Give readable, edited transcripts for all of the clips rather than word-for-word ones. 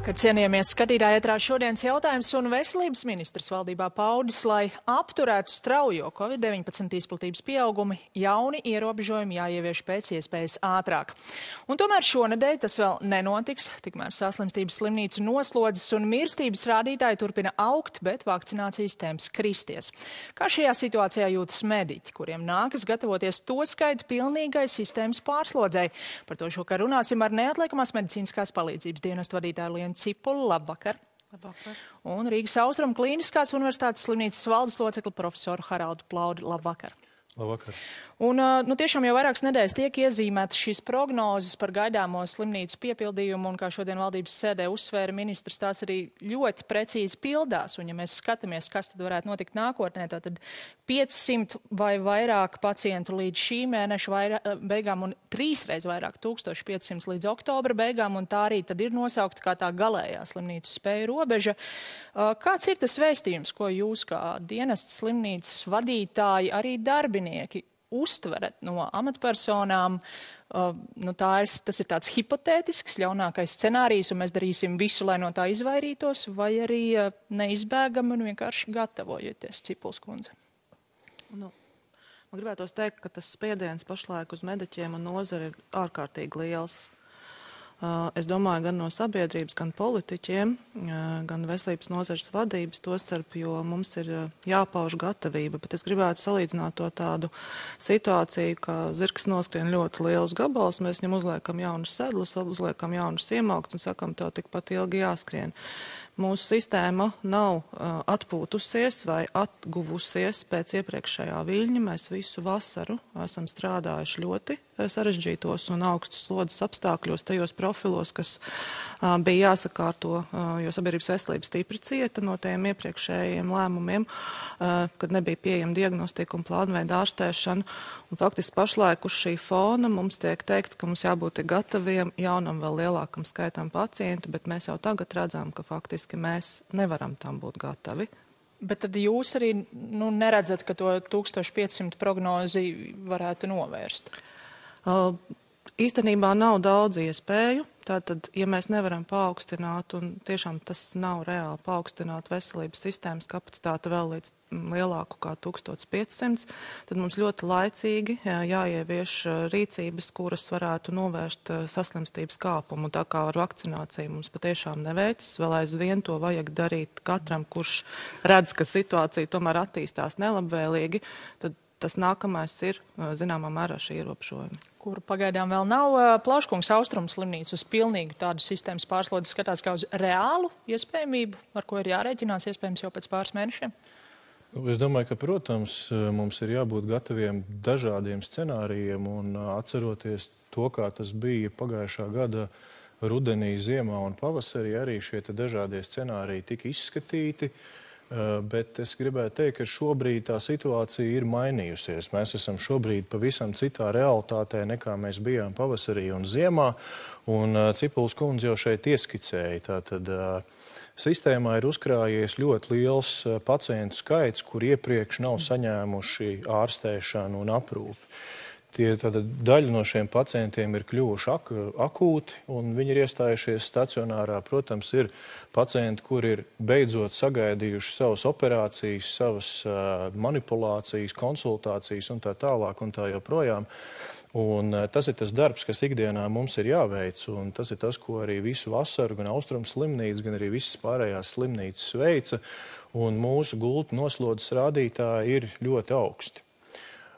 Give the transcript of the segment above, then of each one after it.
Labvakar, cienījamie skatītāji, ētrā šodienas jautājums un veselības ministrs valdībā paudis, lai apturētu straujo Covid-19 izplatības pieaugumi, jauni ierobežojumi jāievieš pēc iespējas ātrāk. Un tomēr šonedēļ tas vēl nenotiks, tikmēr saslimstības slimnīcu noslodzes un mirstības rādītāji turpina augt, bet vakcinācijas temps kristies. Kā šajā situācijā jūtas mediķi, kuriem nākas gatavoties to skaitu pilnīgai sistēmas pārslodzei? Par to šokar runāsim ar neatliekamās medicīniskās palīdzības dienestu vadītāju Lienu Cipuli. Labvakar. Labvakar. Un Rīgas Austrumu Klīniskās universitātes slimnīcas valdes locekli profesoru Haraldu Plaudi. Labvakar. Labvakar. Un tiešām jau vairākas nedēļas tiek iezīmētas šīs prognozes par gaidāmo slimnīcu piepildījumu, un kā šodien valdības sēdē uzsvēra ministrs, tās arī ļoti precīzi pildās. Un ja mēs skatāmies, kas tad varētu notikt nākotnē, tad 500 vai vairāk pacientu līdz šī mēneša beigām un 3 reiz vairāk, 1500 līdz oktobra beigām, un tā arī tad ir nosaukta kā tā galējā slimnīcas spēja robeža. Kāds ir tas vēstījums, ko jūs kā dienestas slimnīcas vadītāji, arī darbinieki uztverat no amatpersonām? Tas ir tāds hipotētisks, ļaunākais scenārijs, un mēs darīsim visu, lai no tā izvairītos, vai arī neizbēgami un vienkārši gatavojoties, Cipuls kundze? Man gribētos teikt, ka tas spiediens pašlaik uz mediķiem un nozari ir ārkārtīgi liels. Es domāju, gan no sabiedrības, gan politiķiem, gan veselības nozares vadības, tostarp, jo mums ir jāpauž gatavība, bet es gribētu salīdzināt to tādu situāciju, ka zirgs noskrien ļoti lielus gabalus, mēs viņam uzliekam jaunus sedlus, uzliekam jaunus iemauktus un sakam, tev tikpat ilgi jāskrien. Mūsu sistēma nav atpūtusies vai atguvusies pēc iepriekšējā viļņa. Mēs visu vasaru esam strādājuši ļoti sarežģītos un augstus slodzes apstākļos, tajos profilos, kas bija jāsakārto, jo sabiedrības veselība stipri cieta no tiem iepriekšējiem lēmumiem, kad nebija pieejama diagnostika un plānveida ārstēšana. Un faktiski pašlaik uz šī fona mums tiek teikts, ka mums jābūt gataviem jaunam vēl lielākam skaitam pacientu, bet mēs jau tagad redzam, ka faktiski mēs nevaram tam būt gatavi. Bet tad jūs arī neredzat, ka to 1500 prognozi varētu novērst? Īstenībā nav daudz iespēju. Tātad, ja mēs nevaram paaugstināt, un tiešām tas nav reāli paaugstināt veselības sistēmas kapacitāti vēl līdz lielāku kā 1500, tad mums ļoti laicīgi jāievieš rīcības, kuras varētu novērst saslimstības kāpumu. Tā kā ar vakcināciju mums patiešām neveicas, vēl aizvien to vajag darīt katram, kurš redz, ka situācija tomēr attīstās nelabvēlīgi, tad tas nākamais ir, zināmā mērā, šī ierobežojumi. Kuru pagaidām vēl nav. Plauškungs Austrumu slimnīca uz pilnīgu tādu sistēmas pārslodzi skatās kā uz reālu iespējamību, ar ko ir jārēķinās iespējams jau pēc pāris mēnešiem? Es domāju, ka, protams, mums ir jābūt gataviem dažādiem scenārijiem un atceroties to, kā tas bija pagājušā gada rudenī, ziemā un pavasarī, arī šie dažādie scenāriji tika izskatīti. Bet es gribētu teikt, ka šobrīd tā situācija ir mainījusies. Mēs esam šobrīd pavisam citā realitātē, nekā mēs bijām pavasarī un ziemā, un Cipuls kundze jau šeit ieskicēja. Tātad sistēmā ir uzkrājies ļoti liels pacientu skaits, kur iepriekš nav saņēmuši ārstēšanu un aprūpi. Daļa no šiem pacientiem ir kļuvuši akūti, un viņi ir iestājušies stacionārā. Protams, ir pacienti, kuri ir beidzot sagaidījuši savas operācijas, savas manipulācijas, konsultācijas un tā tālāk un tā joprojām. Un tas ir tas darbs, kas ikdienā mums ir jāveic, un tas ir tas, ko arī visu vasaru gan Austrumu slimnīca, gan arī visas pārējās slimnīcas veica, un mūsu gultu noslodzes rādītāji ir ļoti augsti.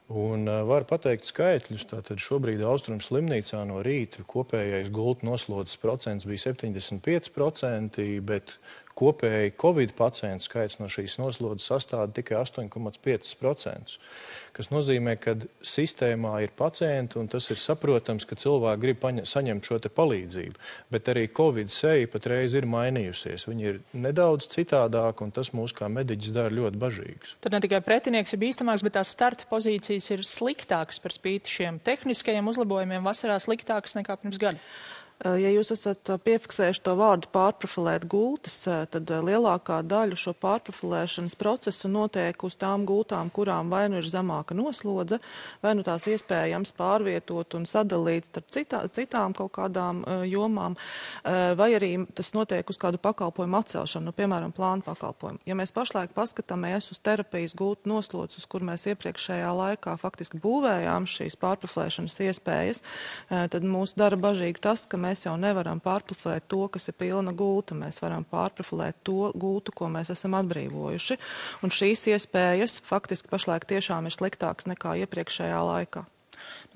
Un var pateikt skaitļus, tātad šobrīd Austrumu slimnīcā no rīta kopējais gultu noslodzes procents bija 75%, bet kopēji Covid pacientu skaits no šīs noslodzes sastāda tikai 8,5%, kas nozīmē, ka sistēmā ir pacienti, un tas ir saprotams, ka cilvēki grib saņemt šo palīdzību, bet arī Covid seja patreiz ir mainījusies. Viņi ir nedaudz citādāk, un tas mūs kā mediķis dara ļoti bažīgus. Tad ne tikai pretinieks ir bīstamāks, bet tās starta pozīcijas ir sliktākas par spīti šiem tehniskajiem uzlabojumiem vasarā sliktākas nekā pirms gada. Ja jūs esat piefiksējuši to vārdu pārprofilēt gultas, tad lielākā daļa šo pārprofilēšanas procesu notiek uz tām gultām, kurām vai nu ir zemāka noslodze, vai nu tās iespējams pārvietot un sadalīt starp citām kaut kādām jomām, vai arī tas notiek uz kādu pakalpojumu atcelšanu, piemēram, plānu pakalpojumu. Ja mēs pašlaik paskatāmies uz terapijas gultu noslodzes, kur mēs iepriekšējā laikā faktiski būvējām šīs pārprofilēšanas iespējas, tad mūs dara bažīgi tas, ka mēs jau nevaram pārprofilēt to, kas ir pilna gulta. Mēs varam pārprofilēt to gultu, ko mēs esam atbrīvojuši. Un šīs iespējas faktiski pašlaik tiešām ir sliktākas nekā iepriekšējā laikā.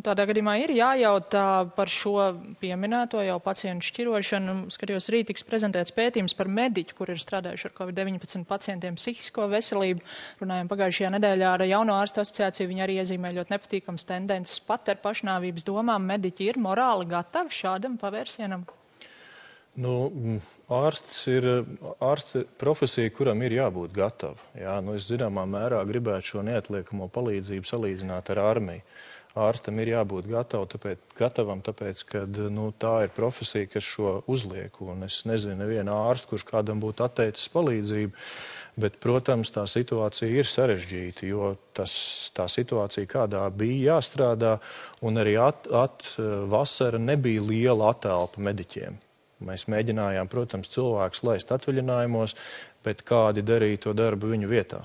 Tādā gadījumā ir jājautā par šo pieminēto jau pacientu šķirošanu. Skatījos, rīt tiks prezentēts pētījums par mediķu, kur ir strādājuši ar COVID-19 pacientiem psihisko veselību. Runājām pagājušajā nedēļā ar Jauno ārstu asociāciju. Viņi arī iezīmē ļoti nepatīkams tendences pat ar pašnāvības domām. Mediķi ir morāli gatavi šādam pavērsienam? Ārsts ir profesija, kuram ir jābūt gatavu. Es zināmā mērā gribētu šo neatliekamo palīdzību salīdzināt ar armiju. Ārstam ir jābūt gatavam, tāpēc, ka tā ir profesija, kas šo uzliek. Un es nezinu nevienu ārstu, kurš kādam būtu atteicis palīdzību, bet, protams, tā situācija ir sarežģīta, jo tā situācija, kādā bija jāstrādā, un arī vasara nebija liela atelpa mediķiem. Mēs mēģinājām, protams, cilvēkus laist atvaļinājumos, bet kādi darīja to darbu viņu vietā.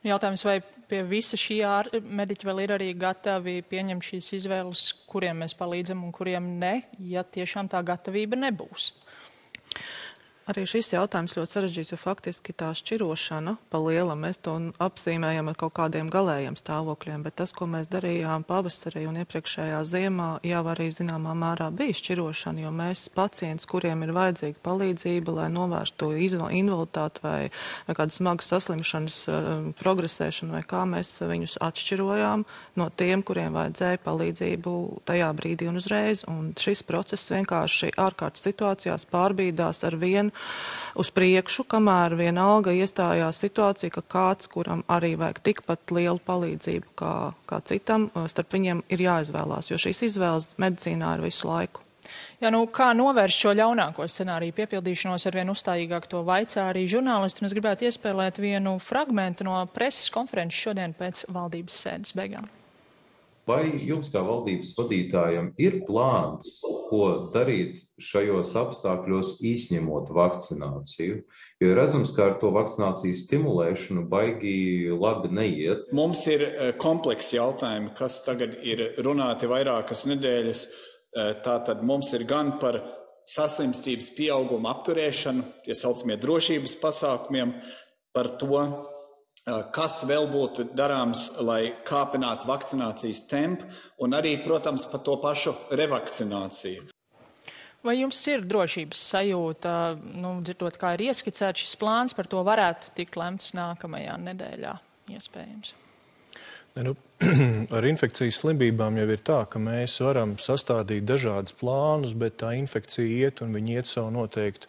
Jautājums, vai pie visa šī mediķi vēl ir arī gatavi pieņemt šīs izvēles, kuriem mēs palīdzam un kuriem ne, ja tiešām tā gatavība nebūs? Arī šis jautājums ļoti sarežģīts, jo faktiski tā šķirošana pa lielam mēs to apzīmējam ar kaut kādiem galējiem stāvokļiem, bet tas, ko mēs darījām pavasarī un iepriekšējā ziemā, jau arī zināmā mērā bija šķirošana, jo mēs pacientus, kuriem ir vajadzīga palīdzība, lai novērstu invaliditāti vai kādu smagu saslimšanas progresēšanu vai kā, mēs viņus atšķirojām no tiem, kuriem vajadzēja palīdzību tajā brīdī un uzreiz. Un šis process vienkārši ārkārtas situācijās pārbīdās ar vienu uz priekšu, kamēr vienalga iestājās situācija, ka kāds, kuram arī vajag tikpat lielu palīdzību kā citam, starp viņiem ir jāizvēlās, jo šīs izvēles medicīnā ir visu laiku. Kā novērst šo ļaunāko scenāriju piepildīšanos, arvien uzstājīgāk to vaicā arī žurnālisti, un es gribētu iespēlēt vienu fragmentu no preses konferences šodien pēc valdības sēdes beigām. Vai jums kā valdības vadītājam ir plāns, ko darīt šajos apstākļos izņemot vakcināciju? Jo redzams, ka ar to vakcinācijas stimulēšanu baigi labi neiet. Mums ir komplekss jautājumi, kas tagad ir runāti vairākas nedēļas. Tātad mums ir gan par saslimstības pieauguma apturēšanu, tie saucamie drošības pasākumiem, par to, kas vēl būtu darāms, lai kāpinātu vakcinācijas tempu, un arī, protams, par to pašu revakcināciju. Vai jums ir drošības sajūta, dzirdot, kā ir ieskicēts šis plāns, par to varētu tikt lemts nākamajā nedēļā, iespējams? Ar infekcijas slimībām jau ir tā, ka mēs varam sastādīt dažādus plānus, bet tā infekcija iet un viņi iet savu noteiktu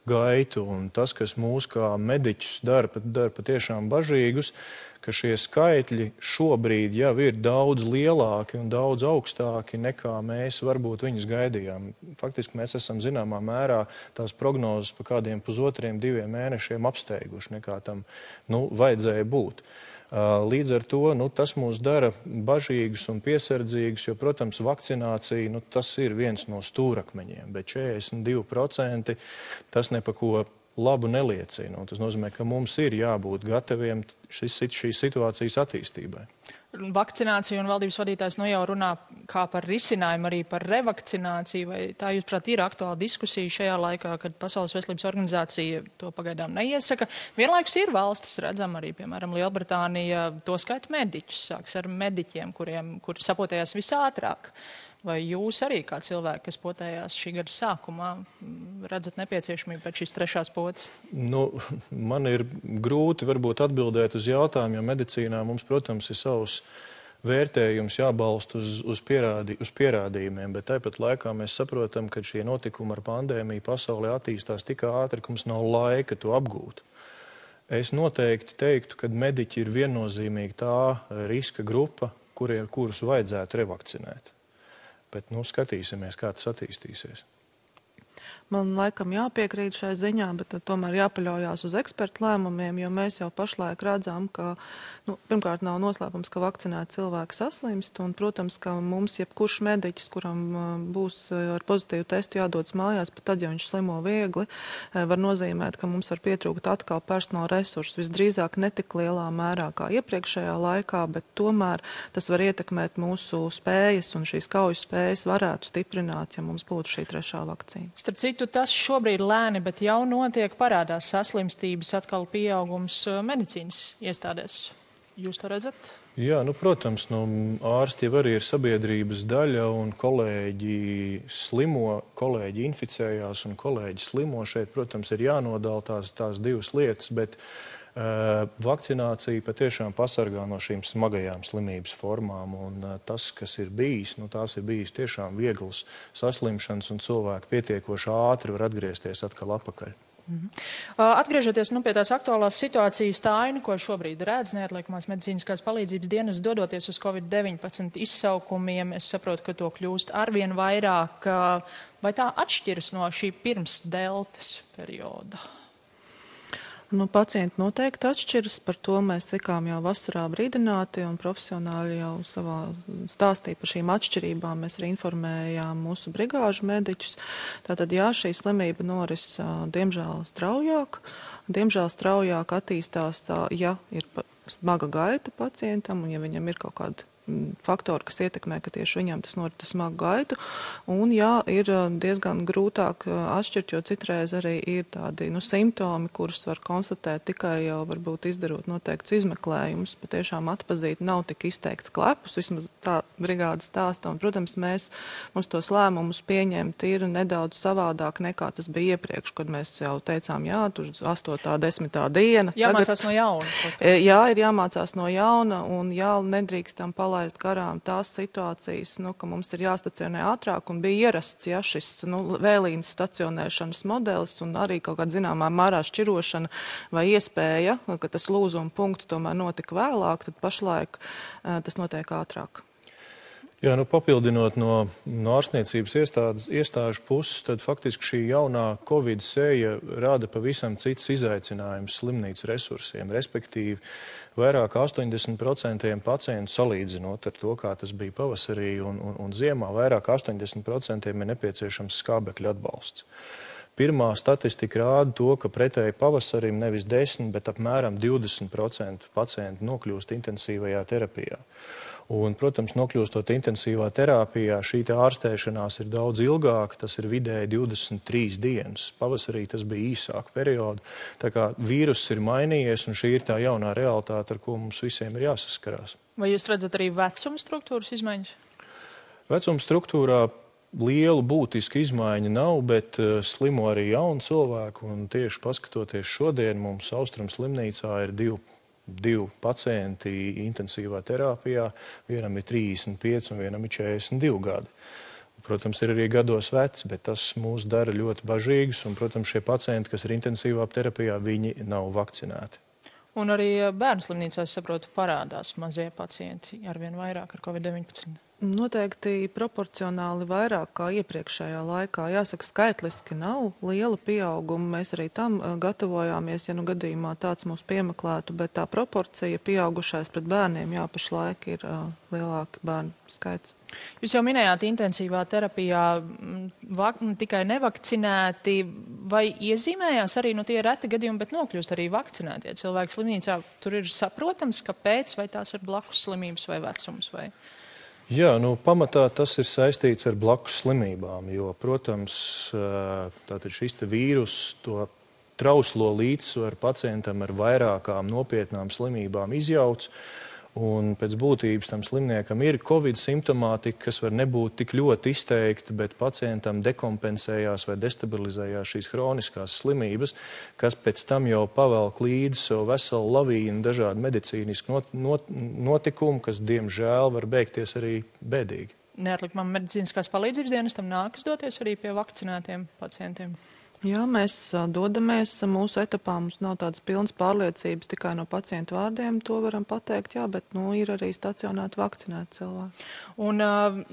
gaitu. Un tas, kas mūs kā mediķus dara patiešām bažīgus, ka šie skaitļi šobrīd jau ir daudz lielāki un daudz augstāki nekā mēs varbūt viņus gaidījām. Faktiski mēs esam zināmā mērā tās prognozes pa kādiem 1,5–2 mēnešiem apsteiguši, nekā tam vajadzēja būt. Līdz ar to tas mūs dara bažīgus un piesardzīgus, jo, protams, vakcinācija tas ir viens no stūrakmeņiem, bet 42% tas ne pa ko labu neliecina. Tas nozīmē, ka mums ir jābūt gataviem šīs situācijas attīstībai. Vakcinācija un valdības vadītājs jau runā kā par risinājumu arī par revakcināciju, vai tā, jūsuprāt, ir aktuāla diskusija šajā laikā, kad Pasaules veselības organizācija to pagaidām neiesaka. Vienlaikus ir valstis, redzam arī, piemēram, Lielbritānija, to skaita mediķus, sāks ar mediķiem, kuri sapotējās visātrāk. Vai jūs arī kā cilvēki, kas potējās šī gada sākumā, redzat nepieciešamību pēc šīs trešās potes? Man ir grūti varbūt atbildēt uz jautājumu, jo medicīnā mums, protams, ir savs vērtējums jābalst uz pierādījumiem, bet tāpat laikā mēs saprotam, ka šie notikumi ar pandēmiju pasaulē attīstās tik ātri, ka mums nav laika to apgūt. Es noteikti teiktu, ka mediķi ir viennozīmīgi tā riska grupa, kurus vajadzētu revakcinēt. Bet skatīsimies, kā tas attīstīsies. Man laikam jāpiekrīt šai ziņā, bet tomēr jāpaļaujās uz ekspertu lēmumiem, jo mēs jau pašlaik redzam, ka, pirmkārt, nav noslēpums, ka vakcinēti cilvēki saslimst, un, protams, ka mums jebkurš mediķis, kuram būs ar pozitīvu testu jādodas mājās, pat tad, ja viņš slimo viegli, var nozīmēt, ka mums var pietrūkt atkal personāla resursus, visdrīzāk netik lielā mērā kā iepriekšējā laikā, bet tomēr tas var ietekmēt mūsu spējas, un šīs kaujas spējas varētu stiprināt, ja mums būtu šī trešā vakcīna. Starp citu, tas šobrīd lēni, bet jau notiek, parādās saslimstības atkal pieaugums medicīnas iestādēs. Jūs to redzat? Jā, protams, ārsti jau arī ir sabiedrības daļa, un kolēģi slimo, kolēģi inficējās un kolēģi slimo. Šeit, protams, ir jānodala tās divas lietas, bet vakcinācija patiešām pasargā no šīm smagajām slimības formām, un tas, kas ir bijis, tās ir bijis tiešām vieglas saslimšanas, un cilvēki pietiekoši ātri var atgriezties atkal atpakaļ. Atgriežoties pie tās aktuālās situācijas, tā aina, ko šobrīd redz neatliekamās medicīniskās palīdzības dienas, dodoties uz COVID-19 izsaukumiem, es saprotu, ka to kļūst arvien vairāk. Vai tā atšķiras no šī pirms deltas perioda? Pacienti noteikti atšķiras, par to mēs tikām jau vasarā brīdināti, un profesionāļi jau savā stāstīja par šīm atšķirībām. Mēs arī informējām mūsu brigāžu mediķus. Tātad, jā, šī slimība noris diemžēl straujāk. Diemžēl straujāk attīstās, ja ir smaga gaita pacientam, un ja viņam ir kaut kāda faktori, kas ietekmē, ka tieši viņam tas norit smagu gaitu. Un jā, ir diezgan grūtāk atšķirt, jo citreiz arī ir tādi simptomi, kurus var konstatēt tikai jau varbūt izdarot noteikts izmeklējumus. Patiešām atpazīt nav tik izteikts klepus, vismaz tā brigāde stāsta. Un, protams, mums tos lēmumus pieņemt ir nedaudz savādāk nekā tas bija iepriekš, kad mēs jau teicām, jā, tur 8. 10. diena. Jāmācās no jauna. Jā, ir jāmācās no jauna, un jā, nedrīkstam palaist garām tās situācijas, ka mums ir jāstacionē ātrāk, un bija ierasts, šis vēlīnas stacionēšanas modelis, un arī kaut kāda zināmā mērā šķirošana vai iespēja, ka tas lūzuma punkts tomēr notika vēlāk, tad pašlaik tas notiek ātrāk. Jā, papildinot no ārstniecības iestāžu puses, tad faktiski šī jaunā Covid sēja rada pavisam cits izaicinājums slimnīcu resursiem, respektīvi vairāk 80% pacientu salīdzinot ar to, kā tas bija pavasarī un ziemā, vairāk 80% ir nepieciešams skābekļa atbalsts. Pirmā statistika rāda to, ka pretēji pavasarim nevis 10, bet apmēram 20% pacientu nokļūst intensīvajā terapijā. Un, protams, nokļūstot intensīvā terapijā, šī ārstēšanās ir daudz ilgāka, tas ir vidēji 23 dienas. Pavasarī tas bija īsāka perioda. Tā kā vīruss ir mainījies, un šī ir tā jaunā realitāte, ar ko mums visiem ir jāsaskarās. Vai jūs redzat arī vecuma struktūras izmaiņas? Vecuma struktūrā lielu būtisku izmaiņu nav, bet slimo arī jauni cilvēki, un tieši paskatoties šodien, mums Austrum slimnīcā ir divi pacienti intensīvā terapijā, vienam ir 35 un vienam ir 42 gadi. Protams, ir arī gados veci, bet tas mūs dara ļoti bažīgus, un, protams, šie pacienti, kas ir intensīvā terapijā, viņi nav vakcinēti. Un arī bērnu slimnīcā, es saprotu, parādās mazie pacienti arvien vairāk ar COVID-19. Noteikti proporcionāli vairāk kā iepriekšējā laikā. Jāsaka, skaitliski nav liela pieauguma. Mēs arī tam gatavojāmies, ja gadījumā tāds mūs piemeklētu, bet tā proporcija pieaugušais pret bērniem, pašlaik ir lielāka bērnu skaits. Jūs jau minējāt intensīvā terapijā tikai nevakcinēti, vai iezīmējās arī tie reti gadījumi, bet nokļūst arī vakcinētie cilvēki slimnīcā. Tur ir saprotams, kāpēc, vai tās ir blakus slimības vai vecums vai... Jā, pamatā tas ir saistīts ar blakus slimībām, jo, protams, tātad šis vīrus to trauslo līdzsvaru pacientam ar vairākām nopietnām slimībām izjauc, un pēc būtības tam slimniekam ir Covid simptomātika, kas var nebūt tik ļoti izteikta, bet pacientam dekompensējās vai destabilizējās šīs hroniskās slimības, kas pēc tam jau pavelk līdzi savu veselu lavīnu dažādu medicīnisku notikumu, kas, diemžēl, var beigties arī bēdīgi. Neatliekamām medicīniskās palīdzības dienestam nākas doties arī pie vakcinētiem pacientiem? Jā, mēs dodamies mūsu etapā, mums nav tādas pilnas pārliecības tikai no pacientu vārdiem, to varam pateikt, jā, bet ir arī stacionēti vakcinēti cilvēki. Un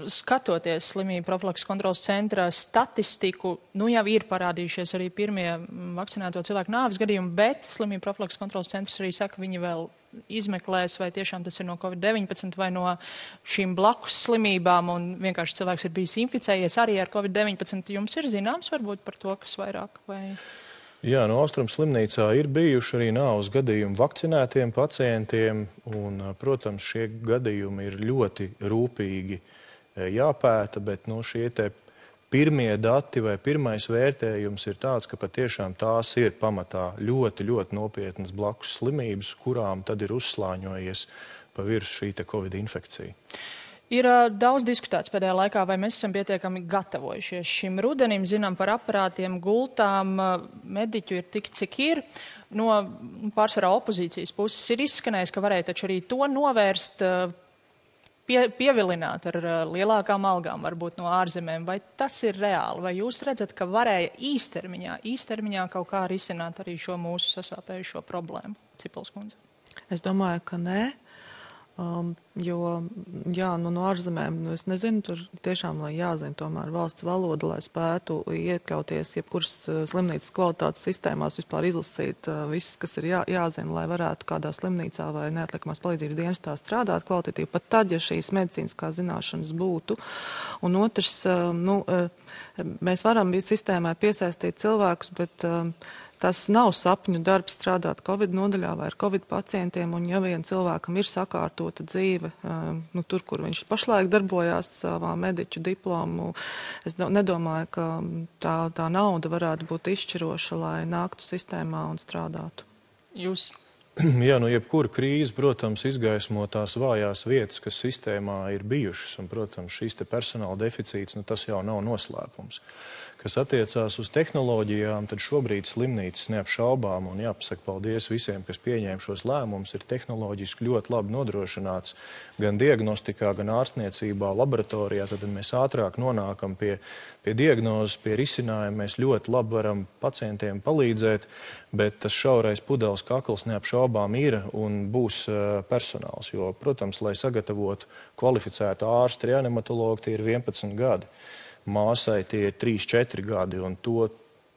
skatoties slimību profilakses kontrolas centra statistiku, jau ir parādījušies arī pirmie vakcinēto cilvēku nāves gadījumi, bet slimību profilakses kontrolas centrs arī saka, viņi vēl izmeklēs, vai tiešām tas ir no COVID-19 vai no šīm blakus slimībām, un vienkārši cilvēks ir bijis inficējies arī ar COVID-19. Jums ir zināms varbūt par to, kas vairāk vai... Jā, no Austrum slimnīcā ir bijuši arī nāves gadījumi vakcinētiem pacientiem, un, protams, šie gadījumi ir ļoti rūpīgi jāpēta, bet šie te pirmie dati vai pirmais vērtējums ir tāds, ka patiešām tās ir pamatā ļoti, ļoti nopietnas blakus slimības, kurām tad ir uzslāņojies pa virsmu šī te Covid infekcija. Ir daudz diskutēts pēdējā laikā, vai mēs esam pietiekami gatavojušies šim rudenim, zinām par aparātiem, gultām, mediķu ir tik, cik ir. No pārsvarā opozīcijas puses ir izskanējis, ka varēja taču arī to novērst, pievilināt ar lielākām algām, varbūt no ārzemēm. Vai tas ir reāli? Vai jūs redzat, ka varēja īstermiņā kaut kā risināt arī šo mūsu sasāpējušo problēmu? Cipels kundze. Es domāju, ka nē. Jo, jā, no ārzemēm, es nezinu, tur tiešām, lai jāzina tomēr valsts valoda, lai spētu iekļauties jebkuras slimnīcas kvalitātes sistēmās, vispār izlasīt viss, kas ir jāzina, lai varētu kādā slimnīcā vai neatliekamās palīdzības dienestā strādāt kvalitatīvi, pat tad, ja šīs medicīniskās zināšanas būtu. Un otrs, mēs varam sistēmai piesaistīt cilvēkus, bet tas nav sapņu darbs strādāt Covid nodaļā vai ar Covid pacientiem, un ja vien cilvēkam ir sakārtota dzīve, tur, kur viņš pašlaik darbojās savā mediķu diplomu, es nedomāju, ka tā nauda varētu būt izšķiroša, lai nāktu sistēmā un strādātu. Jūs? Jā, jebkura krīze, protams, izgaismo tās vājās vietas, kas sistēmā ir bijušas, un, protams, šīs te personāla deficīts, tas jau nav noslēpums. Kas attiecās uz tehnoloģijām, tad šobrīd slimnīcas neapšaubām, un jāpasaka paldies visiem, kas pieņēma šos lēmumus, ir tehnoloģiski ļoti labi nodrošināts gan diagnostikā, gan ārstniecībā, laboratorijā, tad mēs ātrāk nonākam pie diagnozes, pie risinājuma, mēs ļoti labi varam pacientiem palīdzēt, bet tas šaurais pudeles kakls neapšaubām ir un būs personāls, jo, protams, lai sagatavotu kvalificētu ārstu reanimatologu, tie ir 11 gadi. Māsai tie ir 3-4 gadi, un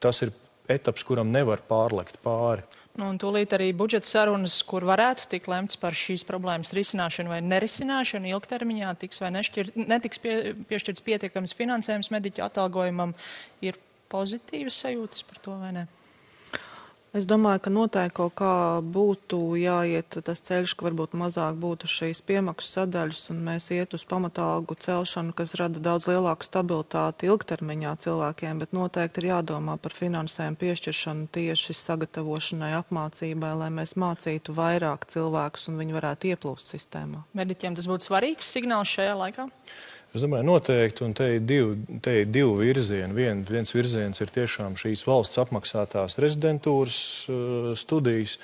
tas ir etaps, kuram nevar pārlekt pāri. Un tūlīt arī budžeta sarunas, kur varētu tikt lemts par šīs problēmas risināšanu vai nerisināšanu ilgtermiņā, tiks vai netiks piešķirts pietiekams finansējums mediķu atalgojumam, ir pozitīvas sajūtas par to vai ne? Es domāju, ka noteikti kaut kā būtu jāiet tas ceļš, ka varbūt mazāk būtu šīs piemaksu sadaļas, un mēs iet uz pamatalgu celšanu, kas rada daudz lielāku stabilitāti ilgtermiņā cilvēkiem, bet noteikti ir jādomā par finansējumu piešķiršanu tieši sagatavošanai, apmācībai, lai mēs mācītu vairāk cilvēkus un viņi varētu ieplūst sistēmā. Mediķiem tas būtu svarīgs signāls šajā laikā? Es domāju, noteikti, un te ir divi virzieni. Viens virziens ir tiešām šīs valsts apmaksātās rezidentūras studijas,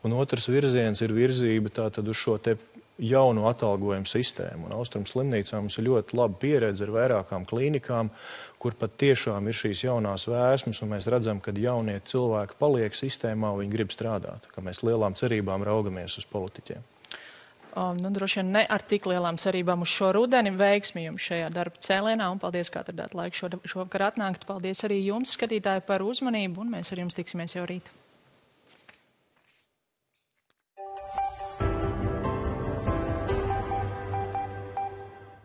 un otrs virziens ir virzība tātad uz šo te jaunu atalgojumu sistēmu. Un Austrum slimnīcā mums ir ļoti laba pieredze ar vairākām klīnikām, kur pat tiešām ir šīs jaunās vēsmas, un mēs redzam, ka jaunie cilvēki paliek sistēmā, un viņi grib strādāt, ka mēs lielām cerībām raugamies uz politiķiem. Droši vien ne ar tik lielām cerībām uz šo rudeni. Veiksmi jums šajā darba cēlienā, un paldies, ka atradāt laiku šovakar atnākt. Paldies arī jums, skatītāji, par uzmanību, un mēs ar jums tiksimies jau rīt.